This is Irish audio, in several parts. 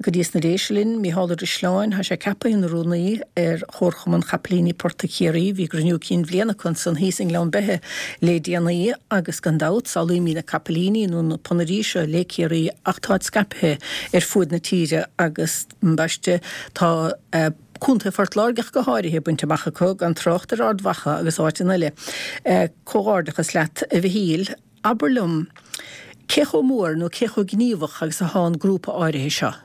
go dtí sna Déise linn, Mícheál Ó Drisleáin, tá sé ceaptha ina rúnaí ar Chomharchumann Chapaillíní Portaigh Chiarraí. Bhí a gcruinniú cinn bhliana acu ansan thíos i nGleann Beithe le déanaí agus gan dabht samhlaímid na capaillíní nó na ponairí seo le Ciarraí ach táid scaipthe ar fuaid na tíre agus ambaiste tá Contae Phort Láirge ach go háirithe bainte amach acu, gan trácht ar Ard Mhacha agus áiteanna eile. Comhghairdeachas leat a Mhichíl. Abair liom, cé chomh mór nó cé chomh gníomhach agus atá an grúpa áirithe seo?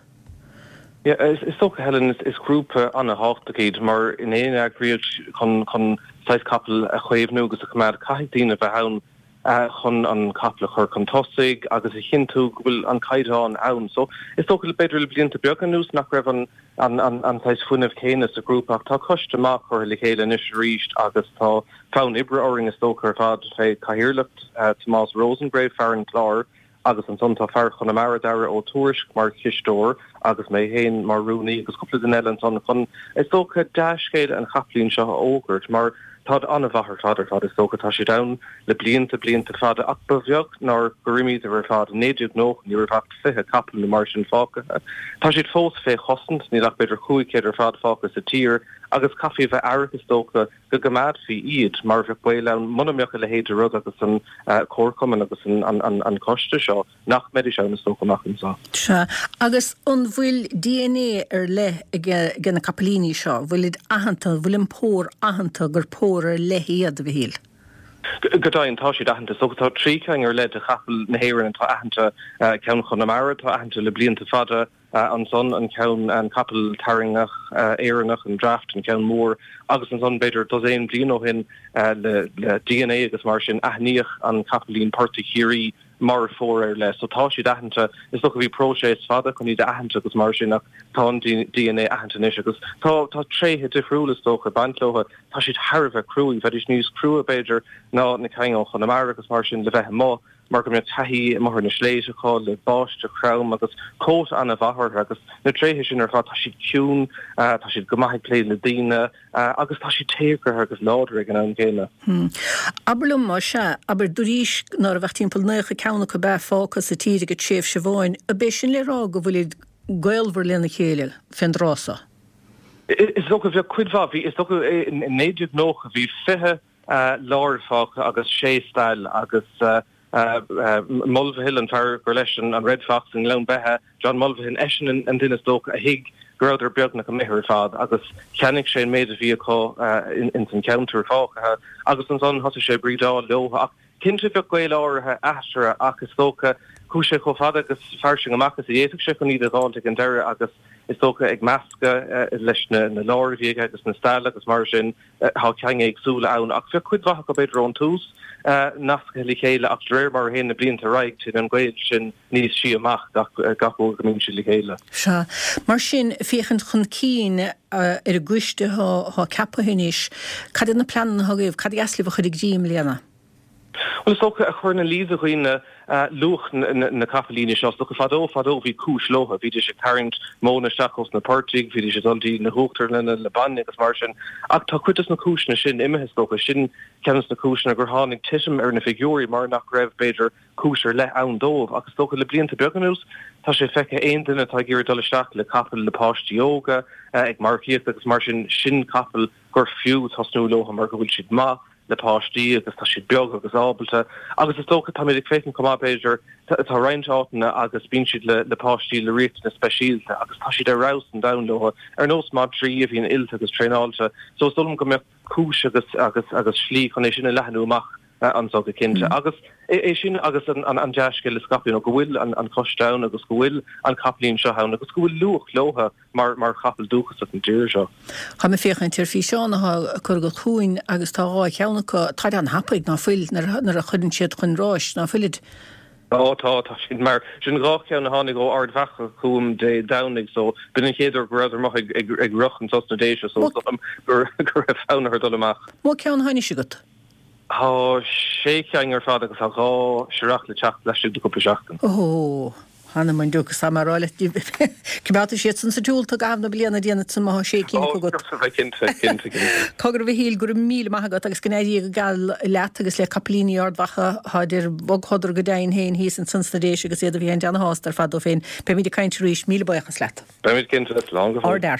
Yeah, is dócha, Helen, is grúpa an-thábhachtach iad mar in aon eagraíocht chun chun saghas capall a chaomhnú agus a choimeád, caithfidh daoine a bheith ann chun an capall a chur chun tosaigh agus a chinntiú go bhfuil an caighdeán ann. So is dócha b'fhéidir le blianta beaga anuas nach raibh an an an saghas fuinneamh céanna sa ghrúpa ach tá coiste maith curtha le chéile anois arís agus tá fonn oibre orainn is dócha ar fad fé chathaoirleacht Tomás Rosengrave, fear an Chláir agus ansan tá fear Chonamara, Dara Ó Tuairisg mar chisteoir agus mé féin mar rúnaí agus cúpla duine eile ansan chun is dócha dea-scéala an chapaillín seo a fhógairt mar táid an-mhaith ar fad ar fad is dócha tá siad ann le blianta blianta fada ach ba bheag nár gur imíodar ar fad i 1990 ní raibh ach 20 capall nó mar sin fágtha. Tá siad fós fé chosaint, níl ach b'fhéidir 500 ar fad fágtha sa tír agus caithfí a bheith aireach is dócha go gcoimeádfaí iad mar bheadh baol ann muna mbeadh a leithéid de rud agus an comharchumann agus an coiste seo nach mbeidís ann is dócha amach anseo. Sea. Agus an bhfuil DNA ar leith ag na capaillíní seo? Bhfuilid aitheanta, an bhfuil an pór aitheanta gur pór ar leith iad, a Mhichíl? Go deimhin, tá siad aitheanta. Is dócha tá 3 cheann ar leith de chapaill na hÉireann atá aitheanta, ceann Chonamara atá aitheanta le blianta fada, ansan an ceann, an capall tarraingtheach Éireannach, an Draft, an ceann mór, agus ansan b'fhéidir dosaen bliain ó shin le DNA agus mar sin aithníodh an capaillín portaigh Chiarraí mar phór ar leith. So tá siad aitheanta. Is dócha bhí próiseas fada chun iad a aithint agus mar sin ach tá an DNA aitheanta anois agus tá tá tréithe difriúla is dócha ag baint leo. Tá siad thar a bheith cruaidh. Bheidís níos crua b'fhéidir ná na cinn ó Chonamara agus mar sin le bheith amuigh mar go mbeadh taithí amuigh ar na sléibhte acu le báisteach throm agus cóta an-mhaith orthu agus na tréithe sin ar fad. Tá siad ciúin, tá siad go maith ag plé le daoine. Agus tá siad téagartha agus láidir ag an am céanna. Abair liom, más ea, abair, dúraís ná raibh ach timpeall 90 ceann acu ab ea fágtha sa tír ag an tréimhse amháin, ab é sin le rá go bhfuilid gaolmhar lena chéile fén dtráth so? Is dócha, bheadh cuid mhaith, bhí, is dócha, i 1990 bhí 20 láir fágtha agus sé stail agus Mulvihill, an fear gur leis an Red Fox i nGleann Beithe, John Mulvihill, eisean an duine is dócha a thuig go rabhadar beagnach imithe ar fad agus cheannaigh sé an méid a bhí acu ins an cheantar fágtha agus ansan thosaigh sé ag brídeáil leo ach cinnte bheadh gaol áirithe eatarthu ach is dócha chuaigh sé chomh fada agus fairsing amach is a d'fhéadfadh sé chun iad a dh'fháilt ag an deireadh agus is dócha ag meascadh leis na láir a bhí aige agus na stail agus mar sin. Tá cinn éagsúla ann, ach bheadh cuid mhaith acu b'fhéidir ón tús nasctha le chéile ach de réir mar a théann na blianta ar aghaidh téann an gaol sin níos sia amach gach uair go mbíonn siad le chéile. Sea. Mar sin, féachaint chun cinn ar an gcoiste atá ceaptha anois, cad iad na pleananna atá agaibh, cad ba dheas libh a chur i gcrích i mbliana? Bhuel, is dócha, a chur ina luí do dhaoine luach na capaillíní seo. Is dócha, fadó, fadó, bhí cúis leo. Bhídís ag tarraingt móna isteach ós na portaigh, bhídís ag dul dtí na huachtarlanna le bainne agus mar sin. Ach tá cuid dos na cúiseanna sin imithe, is dócha. Sin ceann dos na cúiseanna gur tháinig titim ar na figiúirí, mar nach raibh, b'fhéidir, cúis ar leith ann dóibh. Ach is dócha, le blianta beaga anuas, tá sé feicthe aon duine atá ag iarraidh dul isteach le capall le páistí óga, ag marcaíocht agus mar sin, sin capall gur fiú tosnú leo mar go bhfuil siad maith, le páistí agus tá siad beag agus ábalta agus is dócha táimid ag féachaint chomh maith b'fhéidir tá roinnt áiteanna agus bíonn siad le le páistí le riachtanais speisialta agus tá siad ar fheabhas an domhain leo ar nós madraí a bhíonn oilte agus traenáilte so is dóigh liom go mbeadh cúis agus agus agus slí chun é sin a leathnú amach anso go cinnte agus é sin agus an an an dea-scéal a scaipeadh you know go bhfuil an an coiste ann agus go bhfuil an capaillín seo ann agus go bhfuil luach leo mar mar chapall dúchasach na tíre seo. Táim ag féachaint ar físeán atá curtha agat chugainn agus tá 2 cheann acu, táid an-thapaidh, ná fuil, nuair a chuireann siad chun ráis, ná fuilid? Ó tá, tá siad mar sin 2 cheann a tháinig ó Ard Mhacha chugam Dé Domhnaigh so b'in an chéad uair go rabhadar amuigh ag ag ag rith anso sna Déise so is dóigh liom go go raibh fonn orthu dul amach. Mó ceann atá anois agat? Tá sé cheann ar fad agus tá 2 searrach le teacht laistigh de cúpla seachtain. Ó! Th'anam 'on diúc, is tá mé a rá leat, coimeádfaidh siad san sa tsiúl tú i gcaitheamh na bliana, déanfaidh san má thá sé cinn acu agat. Ó, cinnte, cinnte, cinnte. Cogar a Mhichíl, go raibh míle maith agat agus go n-éirí go geal leat agus le capaillíní Ard Mhacha, tháid ar bhogshodar go deimhin féin thíos ansan sna Déise agus iad a bhí féin ana-shásta ar fad dóibh féin. Beimid ag caint arís, míle buíochas leat. Beimid cinnte, slán go fóill.